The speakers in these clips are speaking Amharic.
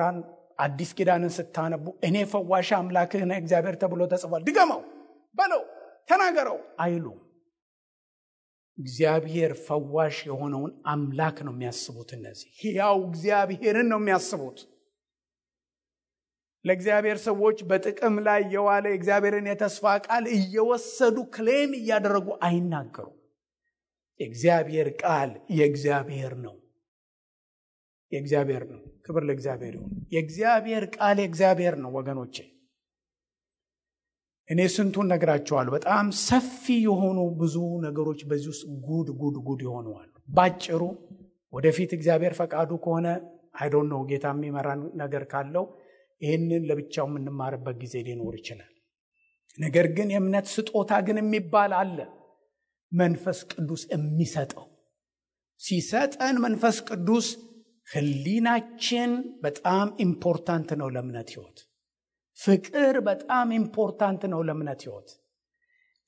ስራን አዲስ ኪዳንን ስታነቡ እኔ ፈዋሽ አምላክህ ነኝ እግዚአብሔር ተብሎ ተጽፏል፣ ድገመው፣ በለው፣ ተናገረው አይሉ። እግዚአብሔር ፈዋሽ የሆነውን አምላክ ነው የሚያስቡት። እነዚህ ሕያው እግዚአብሔርን ነው የሚያስቡት። ለእግዚአብሔር ሰዎች በጥቅም ላይ የዋለ እግዚአብሔርን የተስፋ ቃል እየወሰዱ ክሌም እያደረጉ አይናገሩም። የእግዚአብሔር ቃል የእግዚአብሔር ነው፣ የእግዚአብሔር ነው። ክብር ለእግዚአብሔር ይሁን። የእግዚአብሔር ቃል የእግዚአብሔር ነው ወገኖቼ። እኔ ስንቱን ነግራቸዋለሁ። በጣም ሰፊ የሆኑ ብዙ ነገሮች በዚህ ውስጥ ጉድ ይሆነዋል። ባጭሩ ወደፊት እግዚአብሔር ፈቃዱ ከሆነ አይዶን ነው ጌታ የሚመራን ነገር ካለው ይህንን ለብቻው የምንማርበት ጊዜ ሊኖር ይችላል። ነገር ግን የእምነት ስጦታ ግን የሚባል አለ። መንፈስ ቅዱስ የሚሰጠው ሲሰጠን መንፈስ ቅዱስ ህሊናችን በጣም ኢምፖርታንት ነው ለእምነት ህይወት። ፍቅር በጣም ኢምፖርታንት ነው ለእምነት ህይወት።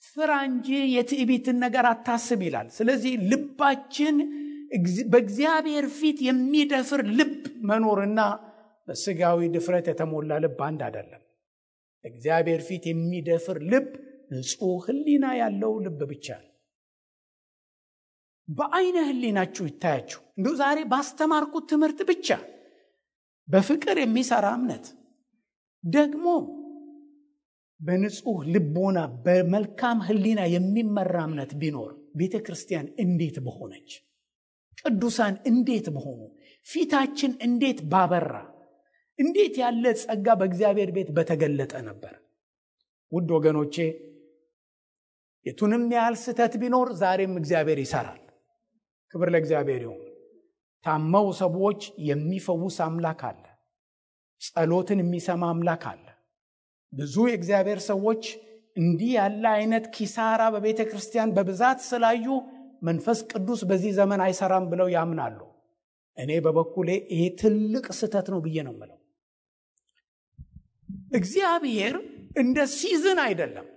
ፍራ እንጂ የትዕቢትን ነገር አታስብ ይላል። ስለዚህ ልባችን በእግዚአብሔር ፊት የሚደፍር ልብ መኖርና በስጋዊ ድፍረት የተሞላ ልብ አንድ አይደለም። እግዚአብሔር ፊት የሚደፍር ልብ ንጹህ ህሊና ያለው ልብ ብቻ ነው። በአይነ ህሊናችሁ ይታያችሁ። እንደው ዛሬ ባስተማርኩት ትምህርት ብቻ በፍቅር የሚሰራ እምነት ደግሞ በንጹህ ልቦና በመልካም ህሊና የሚመራ እምነት ቢኖር ቤተ ክርስቲያን እንዴት በሆነች፣ ቅዱሳን እንዴት በሆኑ፣ ፊታችን እንዴት ባበራ፣ እንዴት ያለ ጸጋ በእግዚአብሔር ቤት በተገለጠ ነበር። ውድ ወገኖቼ የቱንም ያህል ስህተት ቢኖር ዛሬም እግዚአብሔር ይሰራል። ክብር ለእግዚአብሔር ይሁን። ታመው ሰዎች የሚፈውስ አምላክ አለ። ጸሎትን የሚሰማ አምላክ አለ። ብዙ የእግዚአብሔር ሰዎች እንዲህ ያለ አይነት ኪሳራ በቤተ ክርስቲያን በብዛት ስላዩ መንፈስ ቅዱስ በዚህ ዘመን አይሰራም ብለው ያምናሉ። እኔ በበኩሌ ይሄ ትልቅ ስህተት ነው ብዬ ነው የምለው። እግዚአብሔር እንደ ሲዝን አይደለም።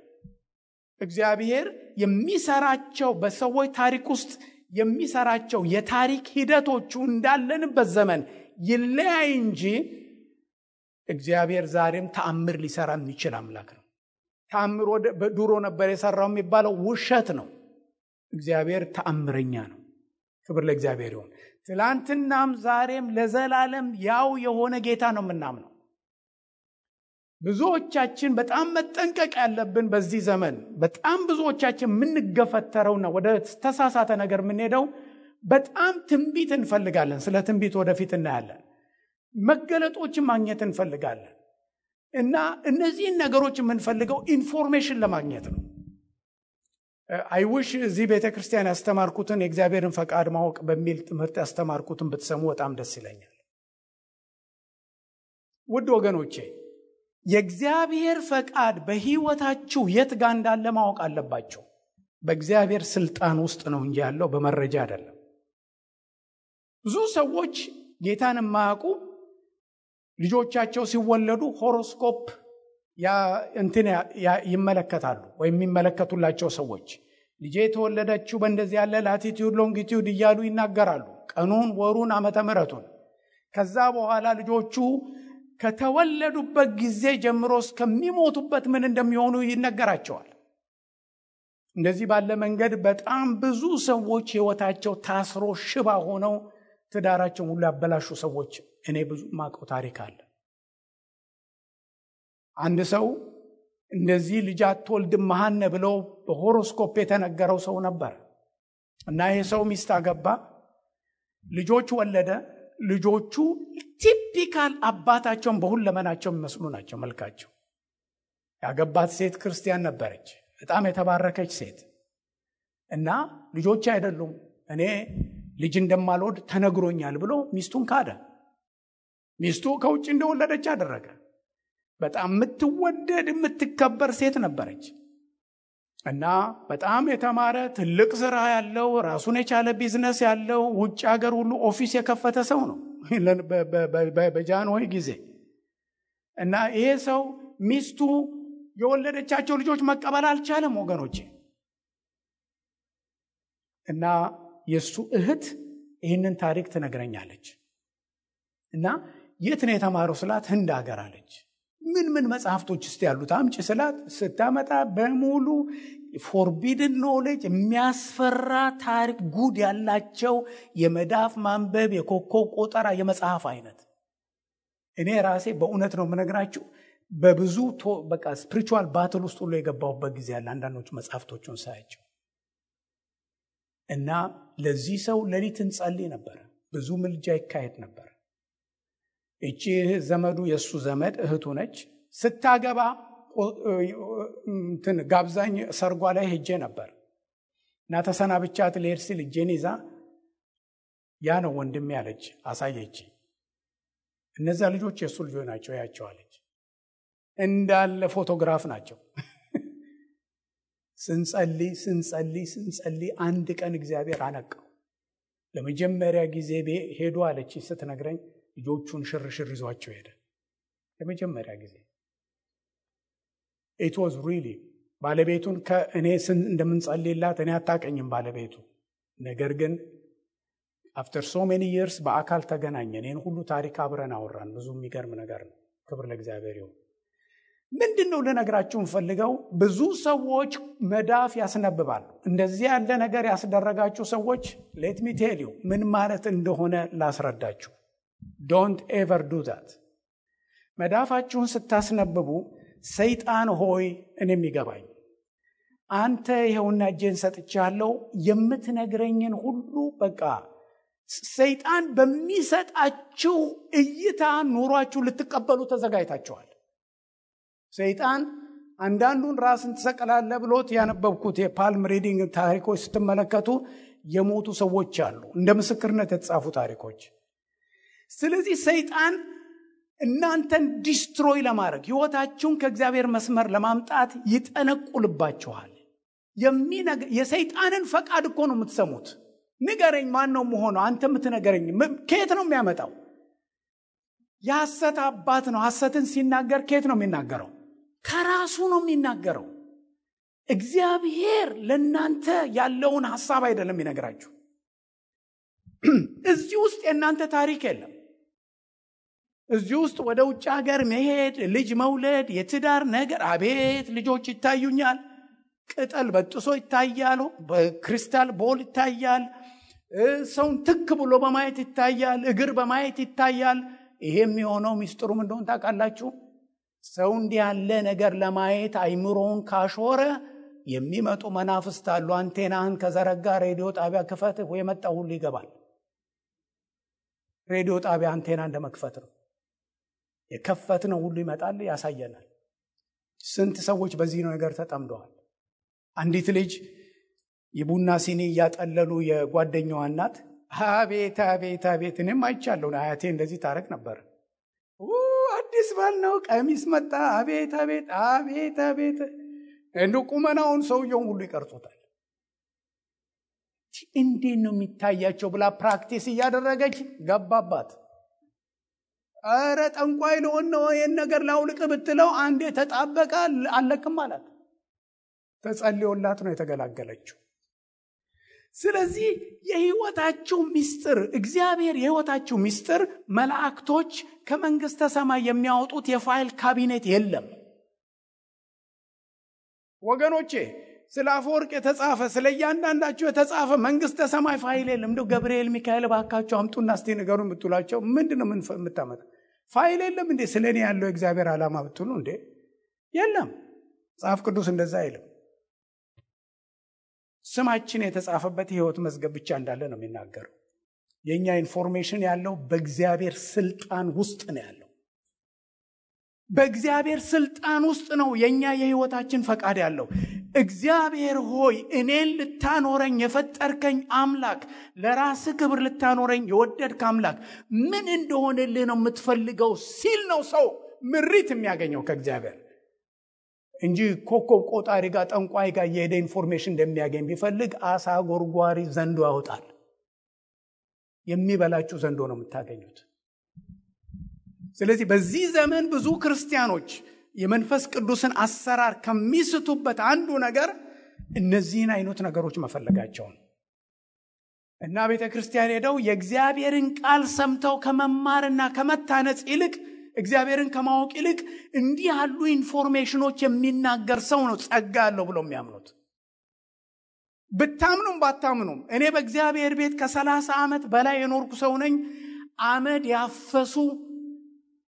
እግዚአብሔር የሚሰራቸው በሰዎች ታሪክ ውስጥ የሚሰራቸው የታሪክ ሂደቶቹ እንዳለንበት ዘመን ይለያይ እንጂ እግዚአብሔር ዛሬም ተአምር ሊሰራ የሚችል አምላክ ነው። ተአምር ድሮ ነበር የሰራው የሚባለው ውሸት ነው። እግዚአብሔር ተአምረኛ ነው። ክብር ለእግዚአብሔር ይሁን። ትላንትናም ዛሬም ለዘላለም ያው የሆነ ጌታ ነው የምናምነው። ብዙዎቻችን በጣም መጠንቀቅ ያለብን በዚህ ዘመን በጣም ብዙዎቻችን የምንገፈተረውና ወደ ተሳሳተ ነገር የምንሄደው በጣም ትንቢት እንፈልጋለን። ስለ ትንቢት ወደፊት እናያለን። መገለጦችን ማግኘት እንፈልጋለን እና እነዚህን ነገሮች የምንፈልገው ኢንፎርሜሽን ለማግኘት ነው። አይውሽ እዚህ ቤተክርስቲያን ያስተማርኩትን የእግዚአብሔርን ፈቃድ ማወቅ በሚል ትምህርት ያስተማርኩትን ብትሰሙ በጣም ደስ ይለኛል። ውድ ወገኖቼ የእግዚአብሔር ፈቃድ በህይወታችሁ የት ጋር እንዳለ ማወቅ አለባችሁ። በእግዚአብሔር ስልጣን ውስጥ ነው እንጂ ያለው በመረጃ አይደለም። ብዙ ሰዎች ጌታን የማያውቁ ልጆቻቸው ሲወለዱ ሆሮስኮፕ ይመለከታሉ ወይም የሚመለከቱላቸው ሰዎች ልጄ የተወለደችው በእንደዚህ ያለ ላቲቲዩድ ሎንጊቲዩድ እያሉ ይናገራሉ። ቀኑን፣ ወሩን፣ ዓመተ ምሕረቱን። ከዛ በኋላ ልጆቹ ከተወለዱበት ጊዜ ጀምሮ እስከሚሞቱበት ምን እንደሚሆኑ ይነገራቸዋል። እንደዚህ ባለ መንገድ በጣም ብዙ ሰዎች ህይወታቸው ታስሮ ሽባ ሆነው ትዳራቸውን ሁሉ ያበላሹ ሰዎች እኔ ብዙ ማቀው ታሪክ አለ። አንድ ሰው እንደዚህ ልጅ አትወልድም መሃነ ብለው በሆሮስኮፕ የተነገረው ሰው ነበር እና ይሄ ሰው ሚስት አገባ፣ ልጆች ወለደ። ልጆቹ ቲፒካል አባታቸውን በሁለመናቸው የሚመስሉ ናቸው መልካቸው። ያገባት ሴት ክርስቲያን ነበረች፣ በጣም የተባረከች ሴት እና ልጆች አይደሉም እኔ ልጅ እንደማልወድ ተነግሮኛል ብሎ ሚስቱን ካደ። ሚስቱ ከውጭ እንደወለደች አደረገ። በጣም የምትወደድ የምትከበር ሴት ነበረች እና በጣም የተማረ ትልቅ ስራ ያለው ራሱን የቻለ ቢዝነስ ያለው ውጭ ሀገር ሁሉ ኦፊስ የከፈተ ሰው ነው በጃንሆይ ጊዜ። እና ይሄ ሰው ሚስቱ የወለደቻቸው ልጆች መቀበል አልቻለም ወገኖቼ። እና የሱ እህት ይህንን ታሪክ ትነግረኛለች። እና የት ነው የተማረው ስላት ህንድ ሀገር አለች። ምን መጽሐፍቶች እስቲ ያሉት አምጪ ስላት ስታመጣ በሙሉ ፎርቢድን ኖሌጅ የሚያስፈራ ታሪክ ጉድ ያላቸው የመዳፍ ማንበብ የኮከብ ቆጠራ የመጽሐፍ አይነት። እኔ ራሴ በእውነት ነው የምነግራችሁ በብዙ በቃ ስፒሪቹዋል ባትል ውስጥ ሁሉ የገባሁበት ጊዜ ያለ አንዳንዶቹ መጽሐፍቶቹን ሳያቸው እና ለዚህ ሰው ሌሊት እንጸልይ ነበር። ብዙ ምልጃ ይካሄድ ነበር። እቺ ዘመዱ የሱ ዘመድ እህቱ ነች። ስታገባ ጋብዛኝ ሰርጓ ላይ ሄጄ ነበር እና ተሰናብቻት ልሄድ ሲል እጄን ይዛ ያ ነው ወንድሜ ያለች አሳየች። እነዛ ልጆች የሱ ልጆች ናቸው ያቸዋለች። እንዳለ ፎቶግራፍ ናቸው። ስንጸልይ አንድ ቀን እግዚአብሔር አነቀው። ለመጀመሪያ ጊዜ ሄዱ አለች ስትነግረኝ ልጆቹን ሽርሽር ይዟቸው ሄደ። ለመጀመሪያ ጊዜ it was really ባለቤቱን ከእኔ እንደምንጸልይላት እኔ አታቀኝም ባለቤቱ። ነገር ግን after so many years በአካል ተገናኘን። እኔን ሁሉ ታሪክ አብረን አወራን። ብዙ የሚገርም ነገር ነው። ክብር ለእግዚአብሔር ይሁን። ምንድነው ለነገራችሁ ፈልገው ብዙ ሰዎች መዳፍ ያስነብባሉ። እንደዚህ ያለ ነገር ያስደረጋችሁ ሰዎች let me tell you ምን ማለት እንደሆነ ላስረዳችሁ። don't ever do that። መዳፋችሁን ስታስነብቡ ሰይጣን ሆይ እኔም ይገባኝ አንተ ይሄውና እጄን ሰጥቻለሁ የምትነግረኝን ሁሉ በቃ ሰይጣን በሚሰጣችሁ እይታ ኑሯችሁ ልትቀበሉ ተዘጋጅታችኋል። ሰይጣን አንዳንዱን ራስን ተሰቀላለ ብሎት ያነበብኩት የፓልም ሪዲንግ ታሪኮች ስትመለከቱ የሞቱ ሰዎች አሉ እንደ ምስክርነት የተጻፉ ታሪኮች። ስለዚህ ሰይጣን እናንተን ዲስትሮይ ለማድረግ ህይወታችሁን ከእግዚአብሔር መስመር ለማምጣት ይጠነቁልባችኋል። የሰይጣንን ፈቃድ እኮ ነው የምትሰሙት። ንገረኝ ማን ነው መሆነው አንተ የምትነገረኝ ከየት ነው የሚያመጣው? የሐሰት አባት ነው። ሐሰትን ሲናገር ከየት ነው የሚናገረው? ከራሱ ነው የሚናገረው። እግዚአብሔር ለእናንተ ያለውን ሐሳብ አይደለም ይነግራችሁ። እዚህ ውስጥ የእናንተ ታሪክ የለም። እዚህ ውስጥ ወደ ውጭ ሀገር መሄድ፣ ልጅ መውለድ፣ የትዳር ነገር አቤት ልጆች ይታዩኛል። ቅጠል በጥሶ ይታያሉ፣ በክሪስታል ቦል ይታያል፣ ሰውን ትክ ብሎ በማየት ይታያል፣ እግር በማየት ይታያል። ይሄ የሚሆነው ሚስጥሩም እንደሆነ ታውቃላችሁ። ሰው እንዲህ ያለ ነገር ለማየት አይምሮውን ካሾረ የሚመጡ መናፍስት አሉ። አንቴናህን ከዘረጋ ሬዲዮ ጣቢያ ክፈት የመጣው ሁሉ ይገባል። ሬዲዮ ጣቢያ አንቴና እንደመክፈት ነው። የከፈትነው ሁሉ ይመጣል፣ ያሳየናል። ስንት ሰዎች በዚህ ነገር ተጠምደዋል። አንዲት ልጅ የቡና ሲኒ እያጠለሉ የጓደኛዋ እናት አቤት አቤት አቤት እኔም አይቻለሁ አያቴ እንደዚህ ታረግ ነበር። አዲስ ባል ነው ቀሚስ መጣ አቤት አቤት አቤት አቤት እንደው ቁመናውን ሰውየውን ሁሉ ይቀርጹታል። እንዴት ነው የሚታያቸው ብላ ፕራክቲስ እያደረገች ገባባት። አረ ጠንቋይ ለሆነ ነው ይሄን ነገር ላውልቅ ብትለው አንዴ ተጣበቃ አለቅም ማለት ተጸልዮላት ነው የተገላገለችው። ስለዚህ የህይወታችሁ ሚስጥር እግዚአብሔር የህይወታችሁ ሚስጥር መላእክቶች ከመንግስተ ሰማይ የሚያወጡት የፋይል ካቢኔት የለም ወገኖቼ። ስለ አፈወርቅ የተጻፈ ስለ እያንዳንዳችሁ የተጻፈ መንግስተ ሰማይ ፋይል የለም። እንደው ገብርኤል ሚካኤል ባካችሁ አምጡና እስቲ ንገሩን ብትሏቸው ምንድነው የምታመጣ ፋይል የለም እንዴ? ስለኔ ያለው እግዚአብሔር ዓላማ ብትሉ እንዴ የለም። መጽሐፍ ቅዱስ እንደዛ አይልም። ስማችን የተጻፈበት የህይወት መዝገብ ብቻ እንዳለ ነው የሚናገረው። የኛ ኢንፎርሜሽን ያለው በእግዚአብሔር ስልጣን ውስጥ ነው ያለው። በእግዚአብሔር ስልጣን ውስጥ ነው የኛ የህይወታችን ፈቃድ ያለው። እግዚአብሔር ሆይ እኔን ልታኖረኝ የፈጠርከኝ አምላክ፣ ለራስ ክብር ልታኖረኝ የወደድክ አምላክ ምን እንደሆነልህ ነው የምትፈልገው ሲል ነው ሰው ምሪት የሚያገኘው ከእግዚአብሔር እንጂ ኮከብ ቆጣሪ ጋር ጠንቋይ ጋር የሄደ ኢንፎርሜሽን እንደሚያገኝ ቢፈልግ አሳ ጎርጓሪ ዘንዶ ያወጣል። የሚበላችሁ ዘንዶ ነው የምታገኙት። ስለዚህ በዚህ ዘመን ብዙ ክርስቲያኖች የመንፈስ ቅዱስን አሰራር ከሚስቱበት አንዱ ነገር እነዚህን አይነት ነገሮች መፈለጋቸው ነው። እና ቤተክርስቲያን ሄደው የእግዚአብሔርን ቃል ሰምተው ከመማርና ከመታነጽ ይልቅ እግዚአብሔርን ከማወቅ ይልቅ እንዲህ ያሉ ኢንፎርሜሽኖች የሚናገር ሰው ነው ጸጋ ያለው ብለው የሚያምኑት። ብታምኑም ባታምኑም እኔ በእግዚአብሔር ቤት ከ30 ዓመት በላይ የኖርኩ ሰው ነኝ። አመድ ያፈሱ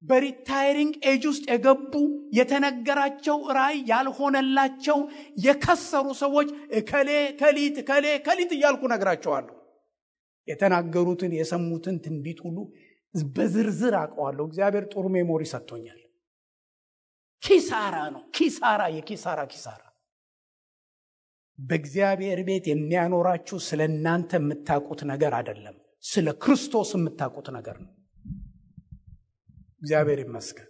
በሪታይሪንግ ኤጅ ውስጥ የገቡ የተነገራቸው ራእይ ያልሆነላቸው የከሰሩ ሰዎች ከሊት እያልኩ ነግራቸዋለሁ። የተናገሩትን የሰሙትን ትንቢት ሁሉ በዝርዝር አውቀዋለሁ። እግዚአብሔር ጥሩ ሜሞሪ ሰጥቶኛል። ኪሳራ ነው፣ የኪሳራ። በእግዚአብሔር ቤት የሚያኖራችሁ ስለ እናንተ የምታውቁት ነገር አይደለም፣ ስለ ክርስቶስ የምታውቁት ነገር ነው። እግዚአብሔር ይመስገን።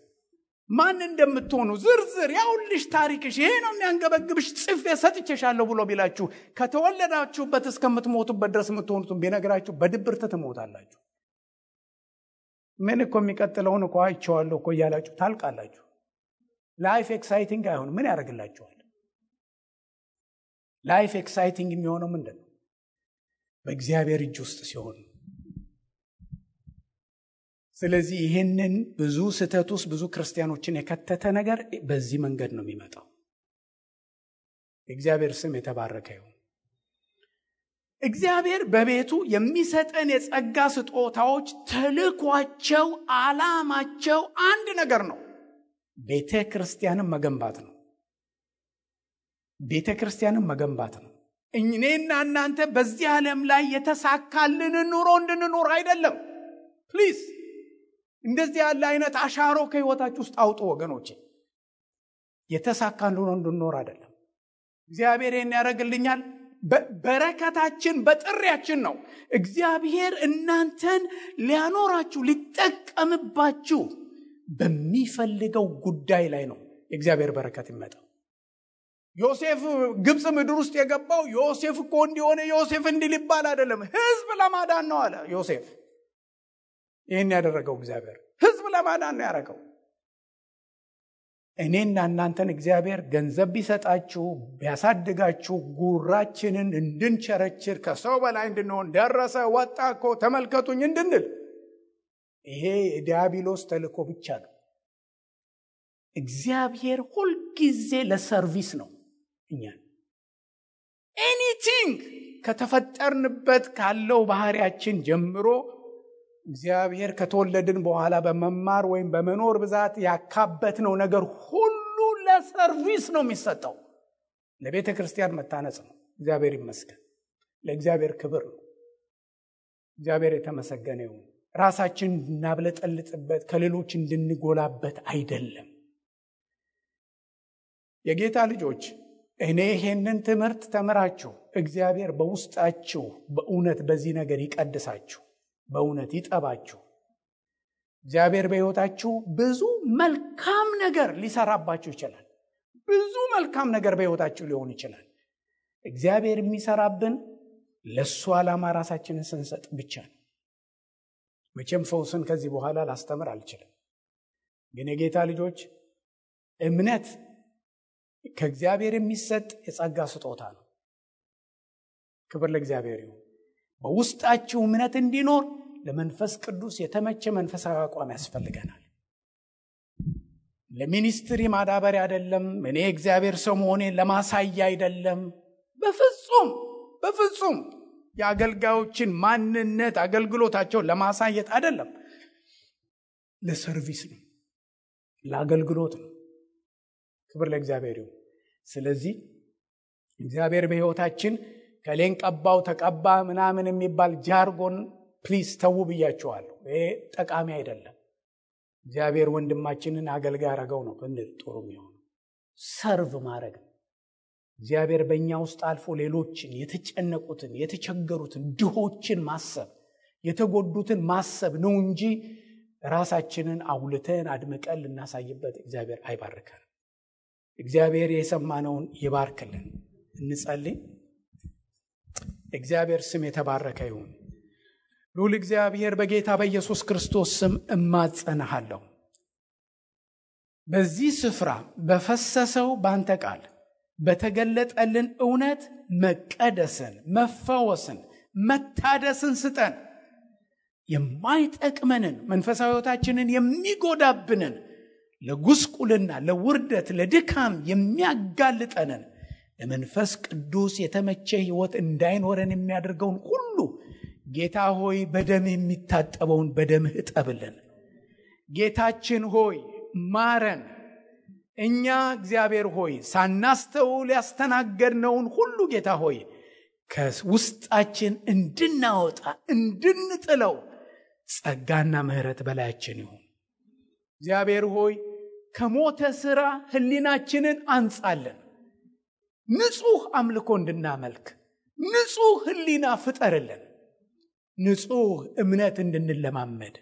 ማን እንደምትሆኑ ዝርዝር ያውልሽ ታሪክሽ ይሄ ነው የሚያንገበግብሽ ጽፌ ሰጥቼሻለሁ ብሎ ቢላችሁ ከተወለዳችሁበት እስከምትሞቱበት ድረስ የምትሆኑትን ቢነግራችሁ በድብርት ትሞታላችሁ። ምን እኮ የሚቀጥለውን እኮ አይቼዋለሁ እኮ እያላችሁ ታልቃላችሁ። ላይፍ ኤክሳይቲንግ አይሆንም። ምን ያደርግላችኋል? ላይፍ ኤክሳይቲንግ የሚሆነው ምንድን ነው? በእግዚአብሔር እጅ ውስጥ ሲሆን። ስለዚህ ይህንን ብዙ ስህተት ውስጥ ብዙ ክርስቲያኖችን የከተተ ነገር በዚህ መንገድ ነው የሚመጣው። የእግዚአብሔር ስም የተባረከ ይሁን። እግዚአብሔር በቤቱ የሚሰጠን የጸጋ ስጦታዎች ተልኳቸው፣ ዓላማቸው አንድ ነገር ነው፣ ቤተ ክርስቲያንን መገንባት ነው። ቤተ ክርስቲያንን መገንባት ነው። እኔና እናንተ በዚህ ዓለም ላይ የተሳካልን ኑሮ እንድንኖር አይደለም። ፕሊዝ እንደዚህ ያለ አይነት አሻሮ ከህይወታችሁ ውስጥ አውጡ ወገኖቼ። የተሳካልን ኑሮ እንድንኖር አይደለም። እግዚአብሔር ይህን ያደርግልኛል። በረከታችን በጥሪያችን ነው። እግዚአብሔር እናንተን ሊያኖራችሁ ሊጠቀምባችሁ በሚፈልገው ጉዳይ ላይ ነው የእግዚአብሔር በረከት ይመጣው። ዮሴፍ ግብጽ ምድር ውስጥ የገባው ዮሴፍ እኮ እንዲሆነ ዮሴፍ እንዲል ይባል አይደለም፣ ህዝብ ለማዳን ነው አለ ዮሴፍ። ይህን ያደረገው እግዚአብሔር ህዝብ ለማዳን ነው ያደረገው። እኔና እናንተን እግዚአብሔር ገንዘብ ቢሰጣችሁ ቢያሳድጋችሁ ጉራችንን እንድንቸረችር ከሰው በላይ እንድንሆን ደረሰ ወጣ እኮ ተመልከቱኝ እንድንል ይሄ የዲያብሎስ ተልእኮ ብቻ ነው። እግዚአብሔር ሁልጊዜ ለሰርቪስ ነው። እኛን ኤኒቲንግ ከተፈጠርንበት ካለው ባህሪያችን ጀምሮ እግዚአብሔር ከተወለድን በኋላ በመማር ወይም በመኖር ብዛት ያካበትነው ነገር ሁሉ ለሰርቪስ ነው የሚሰጠው። ለቤተ ክርስቲያን መታነጽ ነው። እግዚአብሔር ይመስገን። ለእግዚአብሔር ክብር ነው። እግዚአብሔር የተመሰገነ ይሁን። ራሳችን እንድናብለጠልጥበት ከሌሎች እንድንጎላበት አይደለም። የጌታ ልጆች እኔ ይሄንን ትምህርት ተምራችሁ እግዚአብሔር በውስጣችሁ በእውነት በዚህ ነገር ይቀድሳችሁ፣ በእውነት ይጠባችሁ። እግዚአብሔር በሕይወታችሁ ብዙ መልካም ነገር ሊሰራባችሁ ይችላል። ብዙ መልካም ነገር በሕይወታችሁ ሊሆን ይችላል። እግዚአብሔር የሚሰራብን ለሱ ዓላማ ራሳችንን ስንሰጥ ብቻ ነው። መቼም ፈውስን ከዚህ በኋላ ላስተምር አልችልም። ግን የጌታ ልጆች እምነት ከእግዚአብሔር የሚሰጥ የጸጋ ስጦታ ነው። ክብር ለእግዚአብሔር ይሁን። በውስጣችሁ እምነት እንዲኖር ለመንፈስ ቅዱስ የተመቸ መንፈሳዊ አቋም ያስፈልገናል። ለሚኒስትሪ ማዳበሪያ አይደለም። እኔ እግዚአብሔር ሰው መሆኔን ለማሳያ አይደለም። በፍጹም የአገልጋዮችን ማንነት አገልግሎታቸውን ለማሳየት አይደለም። ለሰርቪስ ነው፣ ለአገልግሎት ነው። ክብር ለእግዚአብሔር ይሁን። ስለዚህ እግዚአብሔር በሕይወታችን ከሌን ቀባው ተቀባ ምናምን የሚባል ጃርጎን ፕሊዝ ተው ብያችኋለሁ። ይሄ ጠቃሚ አይደለም። እግዚአብሔር ወንድማችንን አገልጋይ አረገው ነው ብንል ጥሩ የሚሆነው ሰርቭ ማድረግ ነው። እግዚአብሔር በእኛ ውስጥ አልፎ ሌሎችን የተጨነቁትን፣ የተቸገሩትን፣ ድሆችን ማሰብ፣ የተጎዱትን ማሰብ ነው እንጂ ራሳችንን አውልተን አድምቀን ልናሳይበት እግዚአብሔር አይባርከን። እግዚአብሔር የሰማነውን ይባርክልን። እንጸልይ። እግዚአብሔር ስም የተባረከ ይሁን። ልዑል እግዚአብሔር በጌታ በኢየሱስ ክርስቶስ ስም እማጸናሃለሁ። በዚህ ስፍራ በፈሰሰው ባንተ ቃል በተገለጠልን እውነት መቀደስን፣ መፈወስን፣ መታደስን ስጠን። የማይጠቅመንን መንፈሳዊ ሕይወታችንን የሚጎዳብንን ለጉስቁልና፣ ለውርደት፣ ለድካም የሚያጋልጠንን ለመንፈስ ቅዱስ የተመቸ ሕይወት እንዳይኖረን የሚያደርገውን ሁሉ ጌታ ሆይ በደምህ የሚታጠበውን በደምህ እጠብልን። ጌታችን ሆይ ማረን። እኛ እግዚአብሔር ሆይ ሳናስተውል ያስተናገድነውን ሁሉ ጌታ ሆይ ከውስጣችን እንድናወጣ እንድንጥለው ጸጋና ምሕረት በላያችን ይሁን። እግዚአብሔር ሆይ ከሞተ ሥራ ሕሊናችንን አንጻለን። ንጹሕ አምልኮ እንድናመልክ ንጹሕ ሕሊና ፍጠርልን። ንጹሕ እምነት እንድንለማመድ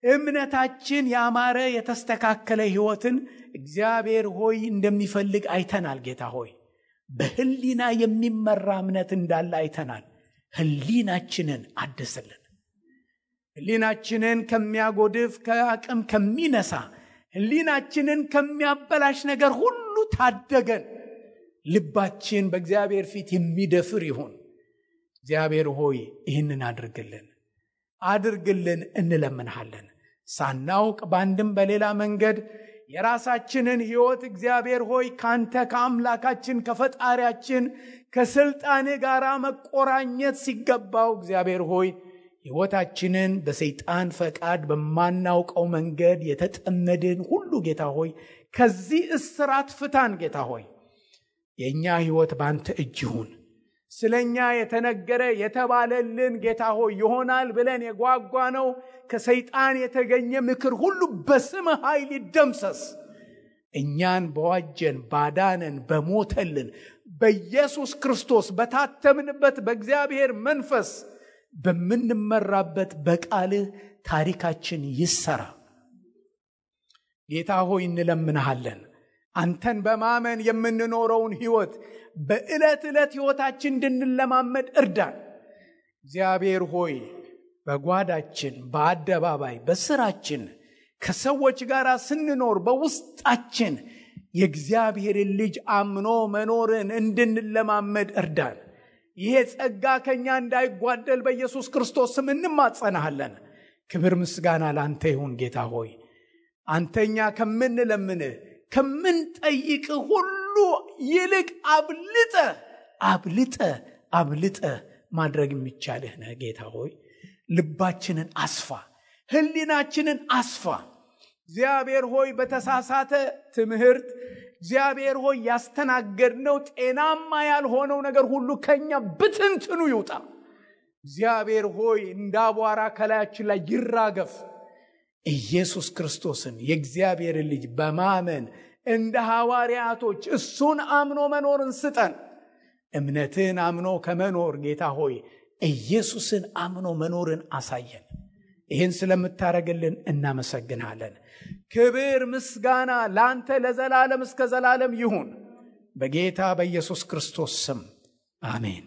እምነታችን ያማረ የተስተካከለ ሕይወትን እግዚአብሔር ሆይ እንደሚፈልግ አይተናል። ጌታ ሆይ በሕሊና የሚመራ እምነት እንዳለ አይተናል። ሕሊናችንን አድስልን። ሕሊናችንን ከሚያጎድፍ ከአቅም ከሚነሳ ሕሊናችንን ከሚያበላሽ ነገር ሁሉ ታደገን። ልባችን በእግዚአብሔር ፊት የሚደፍር ይሁን። እግዚአብሔር ሆይ ይህንን አድርግልን እንለምንሃለን። ሳናውቅ በአንድም በሌላ መንገድ የራሳችንን ሕይወት እግዚአብሔር ሆይ ካንተ ከአምላካችን ከፈጣሪያችን ከስልጣን ጋር መቆራኘት ሲገባው እግዚአብሔር ሆይ ሕይወታችንን በሰይጣን ፈቃድ በማናውቀው መንገድ የተጠመድን ሁሉ ጌታ ሆይ ከዚህ እስራት ፍታን። ጌታ ሆይ የእኛ ሕይወት ባንተ እጅ ይሁን። ስለኛ የተነገረ የተባለልን ጌታ ሆይ ይሆናል ብለን የጓጓ ነው ከሰይጣን የተገኘ ምክር ሁሉ በስም ኃይል ይደምሰስ። እኛን በዋጀን ባዳነን በሞተልን በኢየሱስ ክርስቶስ በታተምንበት በእግዚአብሔር መንፈስ በምንመራበት በቃልህ ታሪካችን ይሰራ። ጌታ ሆይ እንለምንሃለን። አንተን በማመን የምንኖረውን ሕይወት በዕለት ዕለት ሕይወታችን እንድንለማመድ እርዳን። እግዚአብሔር ሆይ በጓዳችን፣ በአደባባይ፣ በስራችን ከሰዎች ጋር ስንኖር በውስጣችን የእግዚአብሔርን ልጅ አምኖ መኖርን እንድንለማመድ እርዳን። ይሄ ጸጋ ከኛ እንዳይጓደል በኢየሱስ ክርስቶስ ስም እንማጸናሃለን። ክብር ምስጋና ላንተ ይሁን። ጌታ ሆይ አንተኛ ከምንለምንህ ከምንጠይቅ ሁሉ ይልቅ አብልጠ ማድረግ የሚቻልህ ነህ። ጌታ ሆይ ልባችንን አስፋ፣ ሕሊናችንን አስፋ። እግዚአብሔር ሆይ በተሳሳተ ትምህርት እግዚአብሔር ሆይ ያስተናገድነው ጤናማ ያልሆነው ነገር ሁሉ ከኛ ብትንትኑ ይውጣ። እግዚአብሔር ሆይ እንዳቧራ ከላያችን ላይ ይራገፍ። ኢየሱስ ክርስቶስን የእግዚአብሔር ልጅ በማመን እንደ ሐዋርያቶች እሱን አምኖ መኖርን ስጠን። እምነትን አምኖ ከመኖር ጌታ ሆይ ኢየሱስን አምኖ መኖርን አሳየን። ይህን ስለምታረግልን እናመሰግናለን። ክብር ምስጋና ላንተ ለዘላለም እስከ ዘላለም ይሁን። በጌታ በኢየሱስ ክርስቶስ ስም አሜን።